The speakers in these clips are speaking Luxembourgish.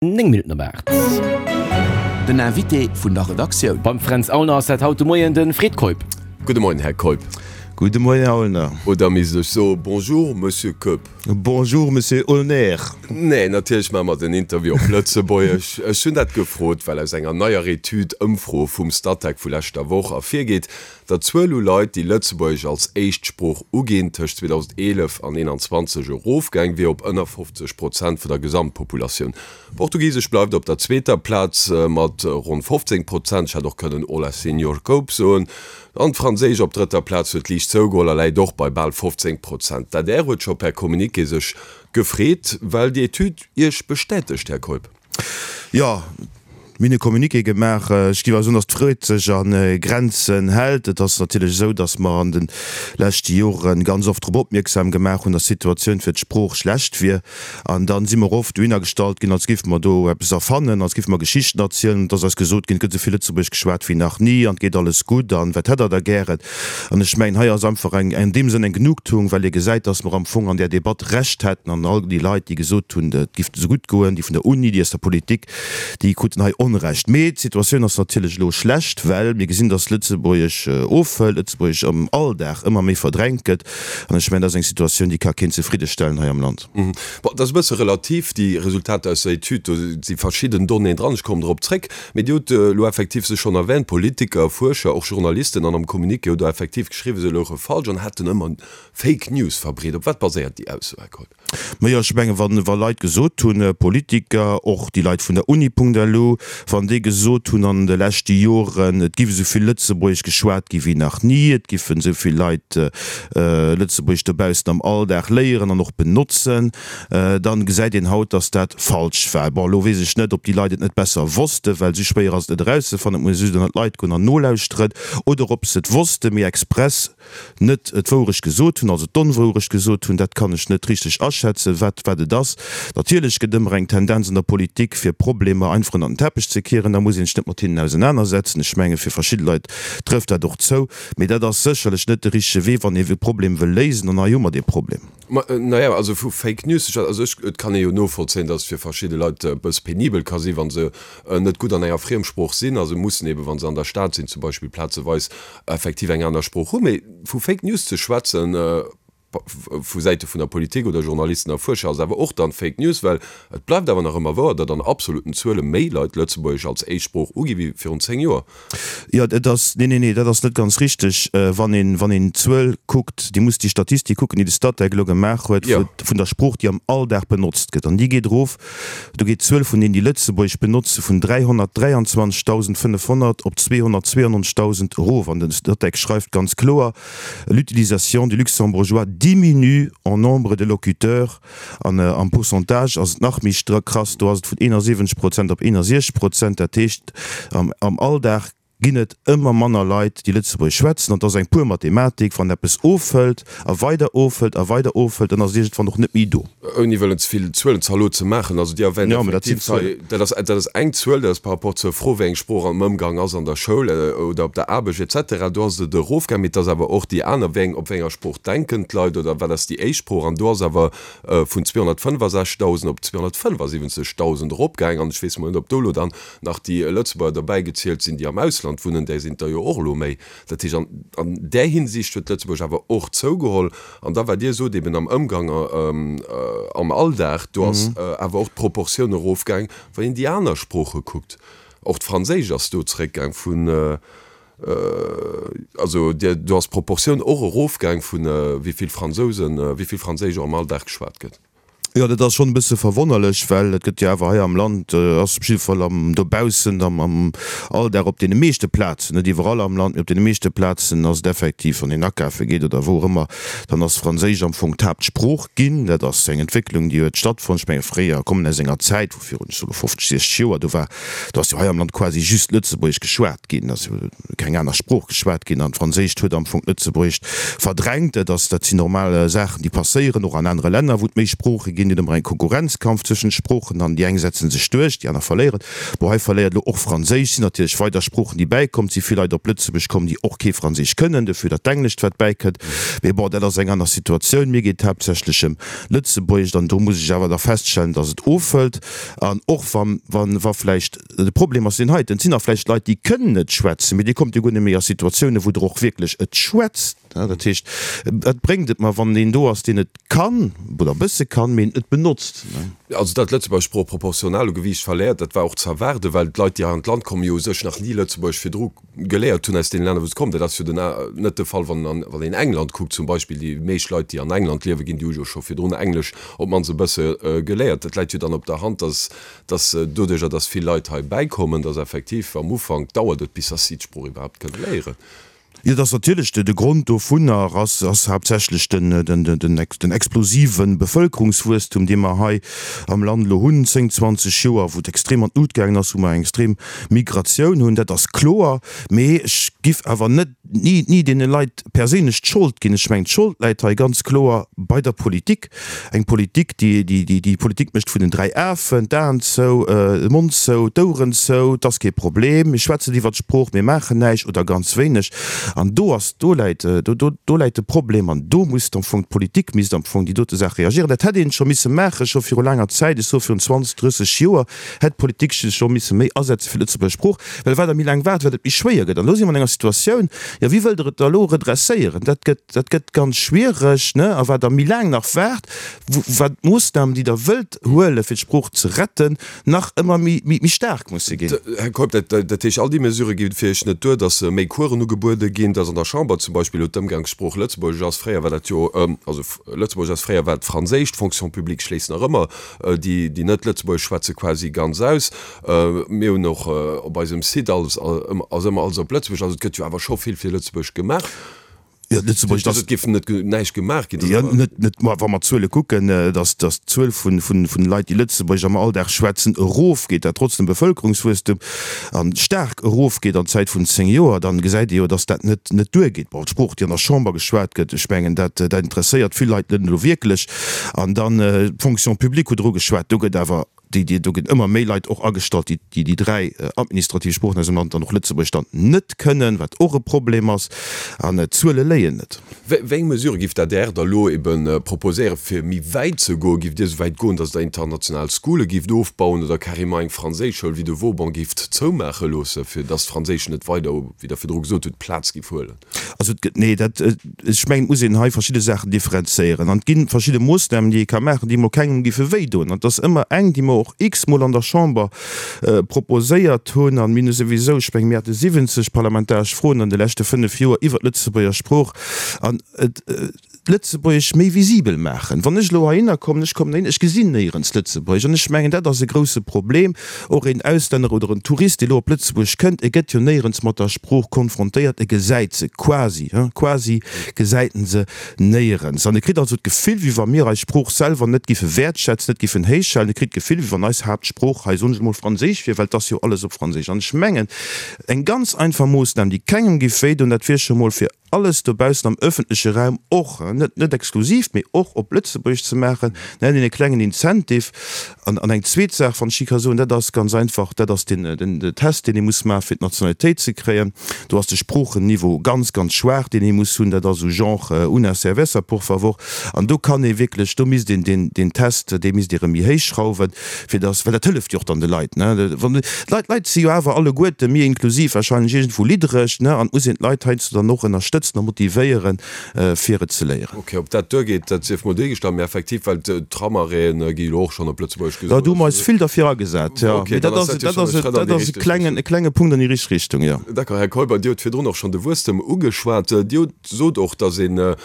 9 Minutten op 8. Den Invité vun der Redaktioun. Beim Fränz Aulner ass dat haut de Moien de Fred Keup. Gudde Moien, Här Keup. Gudde Moien, Här Aulner. Oder misst ech soe Bonjour, Monsieur Keup? Bonjour, Monsieur Aulner. Nee, natierlech maache mer den Interview op Lëtzebuergesch. Ech hunn dat gefrot, well aus enger neier Etüd, Ëmfro vum Statec vu leschter Woch ervirgeet, datt d'Zuel u Leit, déi Lëtzebuergesch als Éischtsprooch uginn, tëscht 2011 an 2021 erofgaang wier op ënner 50 Prozent vun der Gesamtpopulatioun. Portugisesch bleift op der zweeter Plaz mat ronn 15 Prozent, ech hätt och kënnen Olá Senhor Keup soen, an d'Franséisch op drëtter Plaz huet liicht zougeholl a läit och bei bal 15 Prozent. D'adr huet scho per Communiqué sech gefreet, well déi Etüd Iech bestätegt, Här Keup. Jo, mir hunn e Communiqué gemaach. Ech géif awer soen, datt d'Freud sech a Grenzen hält. Et ass natierlech esou, datt mer an de leschte Jore ganz oft drop opmierksam gemaach hunn, datt d'Situatioun fir d'Sprooch schlecht wier. An da si mer oft dohinner gestallt ginn, als géife mer do eppes erfannen, als géife mer Geschichten erzielen. Et ass eis gesot ginn, et gëtt esou vill Lëtzebuergesch geschwat wéi nach ni an et geet alles gutt an wat hätt Der da gären? An ech mengen, hei ass einfach eng, an deem Sënn eng Genugtuung, well ee gesäit, dass mer am Fong an där Debatt Recht hätten an all déi Leit, déi gesot hunn, et giff esou gutt goen, déi vun der Uni, déi aus der Politik, déi kruten hei Onrecht. Mee d'Situatioun ass natierlech elo schlecht, well mir gesinn, dass Lëtzebuergesch ofhëlt, Lëtzebuergesch am Alldag ëmmer méi verdrängt gëtt. An ech mengen, dat ass eng Situatioun, déi ka keen zefriddestellen hei am Land. Bon, dat ass e bësse relativ, déi Resultater aus der Etüd. Do si verschidden Donnéeën dran, ech kommen drop zréck. Mee Dir hutt elo effektiv se schonn erwähnt, Politiker, Fuerscher, och Journalisten an am Communiqué hutt Der effektiv geschriwwen, se louche falsch an hätten ëmmer Fake News verbreet. Op wat baséiert déi Ausso, Här Keup? Majo, ech mengen, wa wa Leit gesot hunn, Politiker, och déi Leit vun der Uni.lu, wann déi gesot hunn an de leschte Joren, et giff esou vill Lëtzebuergesch geschwat gi wéi nach ni, et giffen esou vill Leit Lëtzebuergesch dobaussen am Alldag léieren an och benotzen, dann gesäit een haut, dass dat falsch war. Bon, elo weess ech net, ob déi Leit et net besser wossten, well esou schwéier ass et net erauszefannen, et muss ee just ënnert d'Leit goen an nolauschteren, oder ob se et wossten, mee express net d'Wourecht gesot hunn, also d'Onwourecht gesot hunn, dat kann ech net richteg aschätzen, wat wat et ass. Natierlech gëtt ëmmer eng Tendenz an der Politik, fir Problemer einfach ënnert den Teppech ze kieren, da muss een sech net mat hinnen ausenanersetzen. Ech menge fir verschidde Leit trëfft dat och zou, mee dat ass sécherlech net de richtege Wee, wann ee e Problem wëll léisen, an hei hu mer dee Problem. Ma naja, also vu Fake News ze schwätzen, also ech, et kann ee jo novollzéien, datt et fir verschidde Leit e bësse penibel ka sinn, wa se net gutt an enger Friemsprooch sinn a se mussen eben, wa se an der Stad sinn zum Beispill, plazeweis effektiv eng aner Sprooch hunn. Mee vu Fake News ze schwätzen, vu Säite vun der Politik oder Journalisten a Fuerscher, ass awer och dann Fake News, well et bleift awer nach ëmmer wouer, datt an absoluten Zuele méi Leit Lëtzebuergesch als Éischtsprooch ugi wéi virun 10 Joer. Jo, et ass, nee, nee, nee, dat ass net ganz richteg. Wann een, wann een d'Zuel kuckt, Dir musst déi Statistik kucken, déi de Statec elo gemaach huet, vu, vun der Sprooch, déi am Alldag benotzt gëtt. An déi geet erof, do geet d'Zuel vun deenen, déi Lëtzebuergesch benotze vun 323.500 op 292.000 erof. An de Statec schreift ganz kloer, L'utilisation du luxembourgeois diminue en nombre de locuteurs. An am Pourcentage ass et nach méi krass, do ass et vun 71 Prozent op 61 Prozent. Dat heescht, am Alldag ginn et ëmmer manner Leit, déi Lëtzebuergesch schwätzen. An et ass eng pur Mathematik, wann eppes ofhëlt a weider ofhëlt a weider ofhëlt, dann ass et iergendwann och net méi do. Ouni wëllen ze vill Zuelenzalot ze maachen, also Dir erwähnt effektiv hei, dat ass, dat ass eng Zuel, dat ass par rapport zur Fro, wéi eng Sprooch am Ëmgang ass an der Schoul oder op der Aarbecht et cetera, do ass et erofgaang. Mee et ass awer och déi aner, wéi eng, op wéi enger Sprooch denken d'Leit oder wat ass déi éischt Sprooch? An do ass awer vun 265.000 op 275.000 eropgaang. An ech weess mol net, ob do elo dann nach déi Lëtzebuerger derbäi gezielt sinn, déi am Ausland wunnen, där sinn et der jo och elo méi. Dat heescht, an an där Hinsicht huet Lëtzebuerg awer och zougeholl. An da, wat Dir sot, eben am Ëmgang am Alldag, do ass awer och d'Proportioun erofgaang, wann een déi aner Sprooche kuckt. Och d'Franséisch ass do zeréckgaang vun, also do ass d'Proportioun och erofgaang vun wéi vill Fransousen, wéi vill Franséisch och am Alldag geschwat gëtt. Jo, dat ass schonn e bësse verwonnerlech, well et gëtt jo awer hei am Land, ass op jidde Fall am dobaussen, am am Alldag op deene meeschte Plazen, net iwwerall am Land, mee op deene meeschte Plazen ass et effektiv, wann een akafe geet oder wou och ëmmer, dann ass Franséisch am Fong d'Haaptsprooch ginn. Dat ass eng Entwécklung, déi huet stattfonnt. Ech menge fréier, kommen aus enger Zäit, wou virun, ech soe lo 50, 60 Joer, do war, do ass jo hei am Land quasi just Lëtzebuergesch geschwat ginn, ass jo keng aner Sprooch geschwat ginn an d'Franséischt huet am Fong d'Lëtzebuergescht verdrängt. Dat ass, dat sinn normal Saachen, déi passéieren, och an anere Länner, wou et méi Sprooche ginn. ginn. Et ëmmer eng Konkurrenzkampf zwëschent Sproochen an déi eng setzen sech duerch, déi aner verléieren. Bon, hei verléiert elo och Franséisch. Sinn natierlech weider Sproochen, déi bäikomm. Et si vill Leit op Lëtzebuerg komm, déi och kee Franséisch kënnen, dofir dat Englescht, wat bäikënnt. Mee bon, dat ass eng aner Situatioun. Mir geet et haaptsächlech ëm Lëtzebuergescht an do muss ech awer da feststellen, dass et ofhëlt. An och wann, wann, wa vläicht, de Problem ass deen heiten, et sinn nach vläicht Leit, déi kënnen et schwätzen, mee Dir kommt jo guer net méi a Situatiounen, wou Der och wierklech et schwätzt. Dat heescht, wat bréngt et mer, wann een do ass, deen et kann oder e bësse kann, mee et net benotzt? Also datt d'Lëtzebuerger Sprooch proportional u Gewiicht verléiert, dat war och ze erwaarden, well d'Leit, déi hei an d'Land kommen, jo u sech nach ni Lëtzebuergesch virdru geléiert hunn aus deene Länner, wou se kommen. Dat ass jo den net de Fall, wann wann een England kuckt zum Beispill. Déi meescht Leit, déi an England liewe ginn, déi hu jo scho virdrun Englesch op d'mannst e bësse geléiert. Dat läit jo dann op der Hand, datt datt doduerjer, datt vill Leit hei bäikommen, datt effektiv am Ufank dauert et, bis datt si d'Sprooch iwwerhaapt kënne léieren. Jo, et ass natierlech, de Grond dovunner ass ass haaptsächlech den den explosive Bevëlkerungswuesstum, dee mer hei am Land elo hunn, 10, 20 Joer, wou et extrem an d'Lut gaangen ass, wou mer eng extrem Migratioun hunn. Dat ass kloer. Mee ech giff awer net ni ni deene Leit perséinlech d'Schold ginn. Ech mengen, d'Schold läit hei ganz kloer bei der Politik. Eng Politik, déi, déi, déi, déi Politik mécht vun den 3 Afen, d'Aen zou, de Mond zou, d'Oueren zou, 't ass kee Problem, mir schwätzen iwwert d'Sprooch, mir maachen näischt oder ganz wéineg. An do ass, do läit, do, do, do läit de Problem an do muss am Fong d'Politik misst am Fong déi dote Saach reagieren. Dat hätt een scho misse maachen, scho viru laanger Zäit, ech soe virun 20, 30 Joer hätt d'Politik sech scho misse méi asetze fir d'Lëtzebuerger Sprooch, well wat Der méi laang waart, wat et méi schwéier gëtt. An elo si mer an enger Situatioun, jo wéi wëllt Der et da elo redresséieren? Dat gëtt. Dat gëtt ganz schwiereg, ne? A wat Der méi laang nach waart, wat d'Moossnamen, déi Der wëllt huelen, fir d'Sprooch ze retten, nach ëmmer méi, méi staark musse ginn. Här Keup, dat, dat heescht, all déi Mesurë gi fir Iech net duer, datt méi Coursen ugebuede ginn, datt an der Chamber zum Beispill elo d'Ëmgangssprooch Lëtzebuergesch ass, fréier war dat jo, also Lëtzebuergesch ass, fréier war et Franséisch, d'Fonction publique schléisst nach ëmmer déi, déi net Lëtzebuergesch schwätze quasi ganz aus. Mir hunn och op eisem Site alles, ass ëmmer alles op Lëtzebuergesch, also et gëtt jo awer scho vill fir Lëtzebuergesch gemaach. Jo, Lëtzebuerg, dass. Et géif net näischt gemaach ginn. Jo, net, net, ma wa mer d'Zuele kucken, dass, dass d'Zuel vun, vun, vun Leit, déi Lëtzebuergesch am Alldag schwätzen, erofgeet, dat trotz dem Bevëlkerungswuesstum, a staark erofgeet an Zäit vun 10 Joer, dann gesäit ee jo, dass dat net, net duergeet. Bon, d'Sprooch, déi an der Chamber geschwat gëtt, ech mengen, dat, dat interesséiert vill Leit net elo wierklech. An dann d'Fonction publique hutt Der ugeschwat, do gëtt awer, déi, déi, do ginn ëmmer méi Leit och agestallt, déi, déi déi 3 administrativ Sproochen aus dem Land dann och Lëtzebuergesch dann net kënnen, wat och e Problem ass. An d'Zuele léien net. Wéi eng Mesurë giff d'ADR da lo ebe proposéieren, fir méi wäit ze goen? Giff Dir esou wäit goen, datt Der international Schoole gifft ofbauen oder carrément eng Franséischschoul wéi de Vauban gifft zoumaache loosse, fir datt d'Franséisch net weider, wéi Der virdru gesot hutt, Plaz giff huelen? Also et gëtt, nee, dat, ech mengen, et muss een hei verschidde Saachen differenzéieren. An et gi verschidde Moossnamen, déi ee ka maachen, déi emol kengem géife wéidoen. An et ass ëmmer eng, déi mer och x-mol an der Chamber proposéiert hunn. An mir hunn souwisou, ech mengen, mir hate 70 parlamentaresch Froen an de leschte fënnf Joer iwwert d'Lëtzebuerger Sprooch. An et. Lëtzebuergesch méi visibel maachen. Wann ech elo heihinner kommen, ech kommen heihin, ech gesinn néierens Lëtzebuergesch. An ech mengen, dat ass e grouse Problem. Och een Auslänner oder en Tourist, dee elo op Lëtzebuerg kënnt, e gëtt jo néierens mat der Sprooch konfrontéiert, e gesäit se quasi, hein, quasi gesäit en se néierens. An e kritt also d'Gefill, wéi wa mir eis Sprooch selwer net giffe wäertschätzen, net giffen héichhalen. E kritt d'Gefill, wéi wann eis Haaptsprooch hei, soen ech emol, Franséisch wier, well et ass jo alles op Franséisch. An ech mengen, eng ganz einfach Moossnam, déi kengem giff wéidoen, dat wier scho mol fir alles dobaussen am öffentleche Raum och, net net exklusiv, mee och op Lëtzebuergesch ze maachen, dann hätt een e klengen Incentive. An an eng zweet Saach, wann ech déi ka soen, dat ass ganz einfach, dat ass den den Test, deen ee muss maachen, fir d'Nationalitéit ze kréien. Do ass de Sproochenniveau ganz, ganz schwaach, deen ee muss hunn. Dat ass esou genre una cerveza, por favor. An do kann ee wierklech, do misst een deen deen Test, dee misst ee rëm méi héich schrauwen, fir dass, well dat hëlleft jo och dann de Leit, ne, wann d'Leit, d'Leit si jo awer alleguerte, mir inklusiv, wahrscheinlech iergendwou liddereg, ne, an et muss een d'Leit heiansdo dann och ënnerstëtzen a motivéieren, fir et ze léieren. Ok, ob dat duergeet, dat sief mol duergestallt, mee effektiv, well d'Tramarrêten gi jo och schonn op Lëtzebuergesch gesot. Jo, do hu mer eis vill derfir agesat, jo, mee dat ass, dat ass, dat ass e klengen, e klenge Punkt an déi richteg Richtung, jo. D'accord, Här Keuper, Dir hutt virdrun och schonn de Wuesstem ugeschwat. Dir hutt sot och, datt een e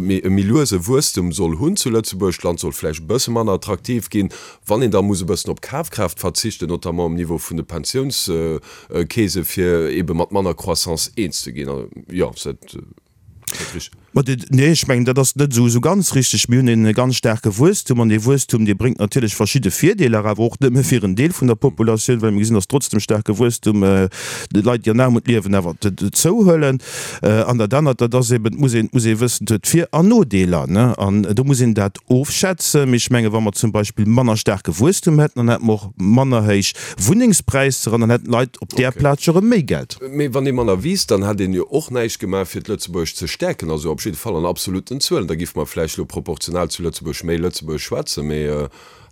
méi luese Wuesstem soll hunn zu Lëtzebuerg, d'Land soll vläicht e bësse manner attraktiv ginn, wann een da muss e bëssen op Kafkraaft verzichten, notamment um Niveau vun de Pensiounskeese fir eebe mat manner Croissance eens ze ginn. Jo, ass dat richteg? Ma nee, ech mengen, dat ass net esou ganz richteg. Mir hunn e ganz staarke Wuesstum an dee Wuesstum, dee bréngt natierlech verschidde Virdeeler, awer och nëmme fir en Deel vun der Populatioun, well mir gesinn, datt trotz dem staarke Wuesstum déi Leit, déi an Aarmut liewen, awer zouhuelen. An dat anert, dat ass eben, et muss een, muss ee wëssen, et huet Vir an Nodeeler, ne, an do muss een dat ofschätzen. Mee ech mengen, wa mer zum Beispill manner staarke Wuesstum hätten, dann hätte mer och manner héich Wunnengspräisser an dann hätten d'Leit op där Plaz jo erëm méi Geld. Mee wann ee manner wiisst, dann hätt een jo och näischt gemaach fir d'Lëtzebuergescht ze stäerken, also op jidde Fall an absoluten Zuelen. Da géife mer vläicht elo proportional zu Lëtzebuerg méi Lëtzebuergesch schwätzen, mee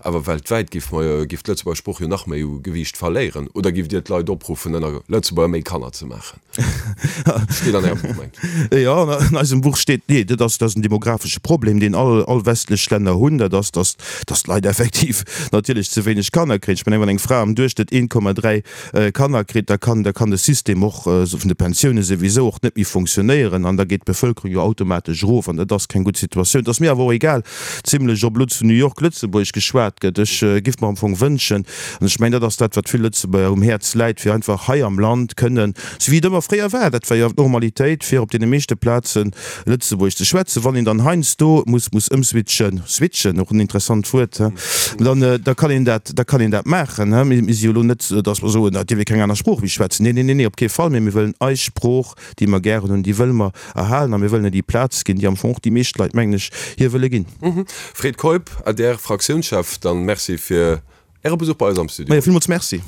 awer weltwäit géife mer, géif d'Lëtzebuerger Sprooch jo nach méi u Gewiicht verléieren. Oder géift Dir d'Leit opruffen, ënner Lëtzebuerger méi Kanner ze maachen? Steet an Ärem Buch, mengt ech. Jo, an eisem Buch steet, nee, dat ass, dat ass en demographesche Problem, deen all, all westlech Länner hunn, dat ass, datt, datt d'Leit effektiv natierlech ze wéineg Kanner kréien. Ech mengen, wann eng Fra am Duerchschnëtt 1,3 Kanner kritt, da kann, da kann de System och vun de Pensioune souwisou och net méi fonctionnéieren an da geet d'Bevëlkerung jo automatesch erof an dat ass keng gutt Situatioun. Et ass mir awer och egal zimlech, ob elo zu New York Lëtzebuergesch geschwat gëtt. Ech giff mer am Fong wënschen, an ech mengen, dat ass dat, wat vill Lëtzebuerger um Häerz läit, fir einfach hei am Land kënnen, sou wéi et ëmmer fréier war, dat war jo d'Normalitéit, fir op deene meeschte Plazen Lëtzebuergesch ze schwätzen. Wann een dann heiansdo muss muss ëmswitchen, switchen, och en interessant Wuert, he, dann da kann een dat, da kann een dat maachen, he. Mir si jo elo net, datt mer soen, et dierf ee keng aner Sprooch méi schwätzen. Nee, nee, nee, nee, op kee Fall. Mee mir wëllen eis Sprooch, déi mer gären hunn, déi wëlle mer erhalen a mir wëllen hir déi Plaz ginn, déi am Fong och déi meescht Leit, mengen ech, hir wëlle ginn. Fred Keup, adr Fraktiounschef, dann Merci fir Äre Besuch bei eis am Studio. Majo, villmools Merci.